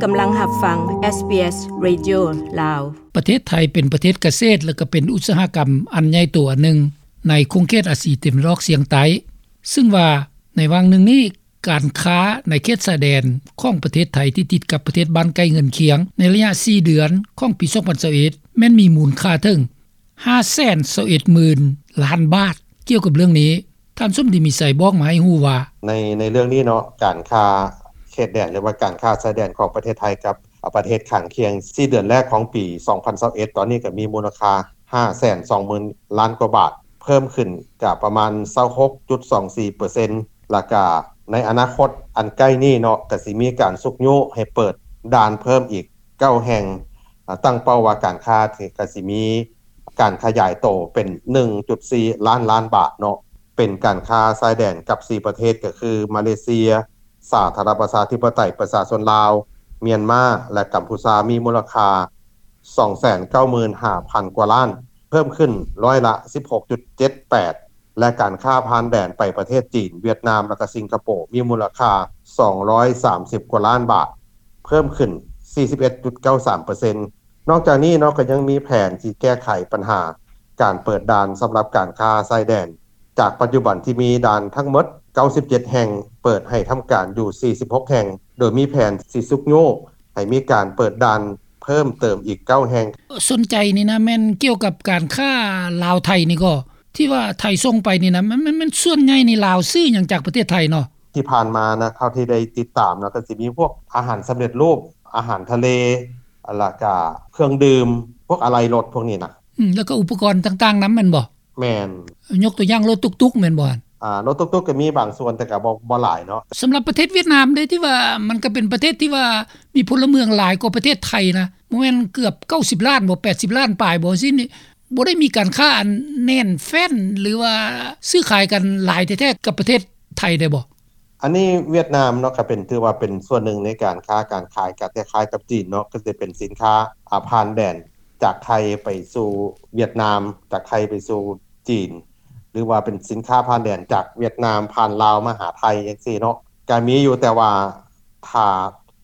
ກຳລັງຮັບຟັງ ເອສບີເອສ ເຣດິໂອ ລາວ. ປະເທດໄທເປັນປະເທດກະເສດ ແລະ ກໍເປັນອຸດສາຫະກຳອັນໃຫຍ່ໂຕອັນໜຶ່ງໃນຂົງເຂດອາຊີຕາເວັນອອກສຽງໃຕ້, ຊຶ່ງວ່າໃນຫວ່າງໜຶ່ງນີ້ ການຄ້າໃນເຂດຊາຍແດນຂອງປະເທດໄທທີ່ຕິດກັບປະເທດບ້ານໃກ້ເຮືອນຄຽງ ໃນໄລຍະສີ່ເດືອນຂອງປີສອງພັນຊາວເອັດ ແມ່ນມີມູນຄ່າເຖິງຫ້າແສນຊາວເອັດໝື່ນລ້ານບາດ. ກ່ຽວກັບເລື່ອງນີ້ ທ່ານສົມດີມີໄຊບອກມາໃຫ້ຮູ້ວ່າ ໃນ ໃນເລື່ອງນີ້ເນາະ ການຄ້າເຂດແດນ ຫຼືວ່າການຄ້າຊາຍແດນຂອງປະເທດໄທກັບປະເທດຂ້າງຄຽງ ສີ່ເດືອນແລກຂອງປີສອງພັນຊາວເອັດ ຕອນນີ້ກໍມີມູນຄ່າຫ້າແສນສອງໝື່ນລ້ານກວ່າບາດ ເພີ່ມຂຶ້ນກະປະມານຊາວຫົກຈຸດສອງສີ່ເປີເຊັນ ແລ້ວກະໃນອະນາຄົດອັນໃກ້ນີ້ເນາະ ກະຊິມີການຊຸກຍູ້ໃຫ້ເປີດດ່ານເພີ່ມອີກເກົ້າແຫ່ງ ຕັ້ງເປົ້າວ່າການຄ້າກະຊິມີການຂະຫຍາຍໂຕເປັນໜຶ່ງຈຸດສີ່ລ້ານລ້ານບາດເນາະ. ເປັນການຄ້າຊາຍແດນກັບສີ່ປະເທດ ກໍຄື ມາເລເຊຍ, ສາທາລະນະລັດປະຊາທິປະໄຕປະຊາຊົນລາວ, ມຽນມາ ແລະ ກຳພູຊາ ມີມູນລະຄ່າສອງແສນເກົ້າໝື່ນຫ້າພັນກວ່າລ້ານ, ເພີ່ມຂຶ້ນຮ້ອຍລະສິບຫົກຈຸດເຈັດແປດ ແລະ ການຄ້າຜ່ານແດນໄປປະເທດຈີນ, ຫວຽດນາມ ແລະ ກະສິງກະໂປ ມີມູນລະຄ່າສອງຮ້ອຍສາມສິບກວ່າລ້ານບາດ, ເພີ່ມຂຶ້ນສີ່ສິບເອັດຈຸດເກົ້າສາມເປີເຊັນ. ນອກຈາກນີ້ເນາະ ກໍຍັງມີແຜນທີ່ແກ້ໄຂບັນຫາການເປີດດ່ານສຳລັບການຄ້າຊາຍແດນ ຈາກປັດຈຸບັນທີ່ມີດ່ານທັງໝົດເກົ້າສິບເຈັດແຫ່ງ ເປີດໃຫ້ທຳການຢູ່ສີ່ສິບຫົກແຫ່ງ ໂດຍມີແຜນຊິຊຸກຍູ້ໃຫ້ມີການເປີດດ່ານເພີ່ມເຕີມອີກເກົ້າແຫ່ງ. ສົນໃຈນີ້ນະ ແມ່ນກ່ຽວກັບການຄ້າລາວໄທນີ້ກໍ ທີ່ວ່າໄທສົ່ງໄປນີ້ນະ ມັນ ມັນ ມັນສ່ວນໃຫຍ່ນີ້ລາວຊື້ຫຍັງຈາກປະເທດໄທເນາະ? ທີ່ຜ່ານມານະ ເທົ່າທີ່ໄດ້ຕິດຕາມນະ ກໍຊິມີພວກອາຫານສຳເລັດຮູບ, ອາຫານທະເລ, ແລ້ວກະເຄື່ອງດື່ມ, ພວກອາໄຫຼ່ລົດພວກນີ້ນະ. ອືມ ແລ້ວກໍອຸປະກອນຕ່າງໆນຳແມ່ນບໍ່? ແມ່ນ. ຍົກຕົວຢ່າງລົດຕຸກໆແມ່ນບໍ່? ອ່າ ລົດຕຸກໆກໍມີບາງສ່ວນ ແຕ່ກໍບໍ່ ບໍ່ຫຼາຍເນາະ. ສຳລັບປະເທດຫວຽດນາມເດ້ ທີ່ວ່າມັນກໍເປັນປະເທດທີ່ວ່າມີພົນລະເມືອງຫຼາຍກວ່າປະເທດໄທນະ ບໍ່ແມ່ນເກືອບເກົ້າສິບລ້ານບໍ່ ແປດສິບລ້ານປາຍບໍ່ ຊີ້ນີ້ ບໍ່ໄດ້ມີການຄ້າອັນແໜ້ນແຟ້ນ ຫຼືວ່າຊື້ຂາຍກັນຫຼາຍແທ້ໆກັບປະເທດໄທໄດ້ບໍ່? ອັນນີ້ຫວຽດນາມເນາະ ກໍເປັນ ຖືວ່າເປັນສ່ວນໜຶ່ງໃນການຄ້າການຂາຍ ກໍຄ້າຍໆກັບຈີນເນາະ ກໍຈະເປັນສິນຄ້າ ອາ ຜ່ານແດນຈາກໄທໄປສູ່ຫວຽດນາມ, ຈາກໄທໄປສູ່ຈີນ ຫຼືວ່າເປັນສິນຄ້າຜ່ານແດນຈາກຫວຽດນາມຜ່ານລາວມາຫາໄທຈັ່ງຊີ້ເນາະ ກໍມີຢູ່ ແຕ່ວ່າຖ້າ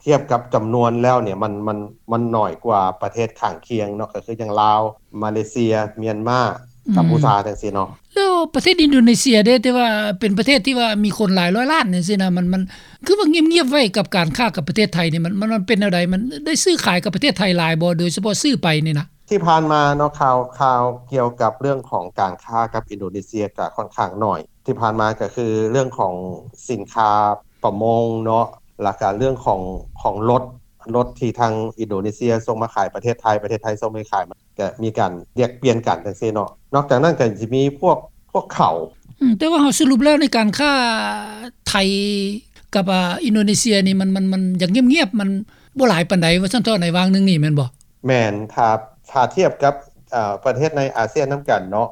ທຽບກັບຈຳນວນແລ້ວນີ້ ມັນ ມັນ ມັນໜ້ອຍກວ່າປະເທດຂ້າງຄຽງເນາະ ກໍຄືຢ່າງລາວ, ມາເລເຊຍ, ມຽນມາ, ອືມ ກຳພູຊາຈັ່ງຊີ້ເນາະ. ແລ້ວປະເທດອິນໂດເນເຊຍເດ້ ທີ່ວ່າເປັນປະເທດທີ່ວ່າມີຄົນຫຼາຍຮ້ອຍລ້ານຈັ່ງຊີ້ນະ ມັນ ມັນຄືວ່າງຽບໆໄວ້ກັບການຄ້າກັບປະເທດໄທນີ້ ມັນ ມັນ ມັນເປັນແນວໃດ? ມັນໄດ້ຊື້ຂາຍກັບປະເທດໄທຫຼາຍບໍ່ ໂດຍສະເພາະຊື້ໄປນີ້ນະ? ທີ່ຜ່ານມາເນາະ ຂ່າວ ຂ່າວກ່ຽວກັບເລື່ອງຂອງການຄ້າກັບອິນໂດເນເຊຍກະຂ້ອນຂ້າງໜ້ອຍ. ທີ່ຜ່ານມາກະຄືເລື່ອງຂອງສິນຄ້າປະມົງເນາະ ແລ້ວກະເລື່ອງຂອງ ຂອງລົດ ລົດທີ່ທາງອິນໂດເນເຊຍສົ່ງມາຂາຍປະເທດໄທ ປະເທດໄທສົ່ງໄປຂາຍ ມັນກະມີການແລກປ່ຽນກັນຈັ່ງຊີ້ເນາະ. ນອກຈາກນັ້ນກະຊິມີພວກ ພວກເຂົ້າ. ອືມ ແຕ່ວ່າເຮົາສະຫຼຸບແລ້ວໃນການຄ້າໄທກັບ ອາ ອິນໂດເນເຊຍນີ້ ມັນ ມັນ ມັນຍັງງຽບໆ ມັນບໍ່ຫຼາຍປານໃດວ່າຊັ້ນເຖາະ ໃນຫວ່າງໜຶ່ງນີ້ແມ່ນບໍ່? ແມ່ນ. ຖ້າ ຖ້າທຽບກັບ ເອີ ປະເທດໃນອາຊຽນນຳກັນເນາະ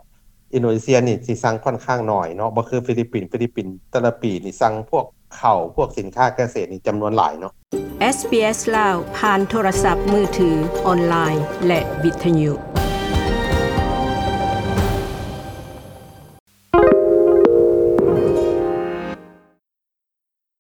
ອິນໂດເນເຊຍນີ້ຊິສັ່ງຂ້ອນຂ້າງໜ້ອຍເນາະ ບໍ່ຄືຟີລິບປິນ. ຟີລິບປິນແຕ່ລະປີນີ້ສັ່ງພວກເຂົ້າ ພວກສິນຄ້າກະເສດນີ້ຈຳນວນຫຼາຍເນາະ. ເອສບີເອສ ລາວ ຜ່ານໂທລະສັບມືຖື, ອອນລາຍ ແລະ ວິທະຍຸ.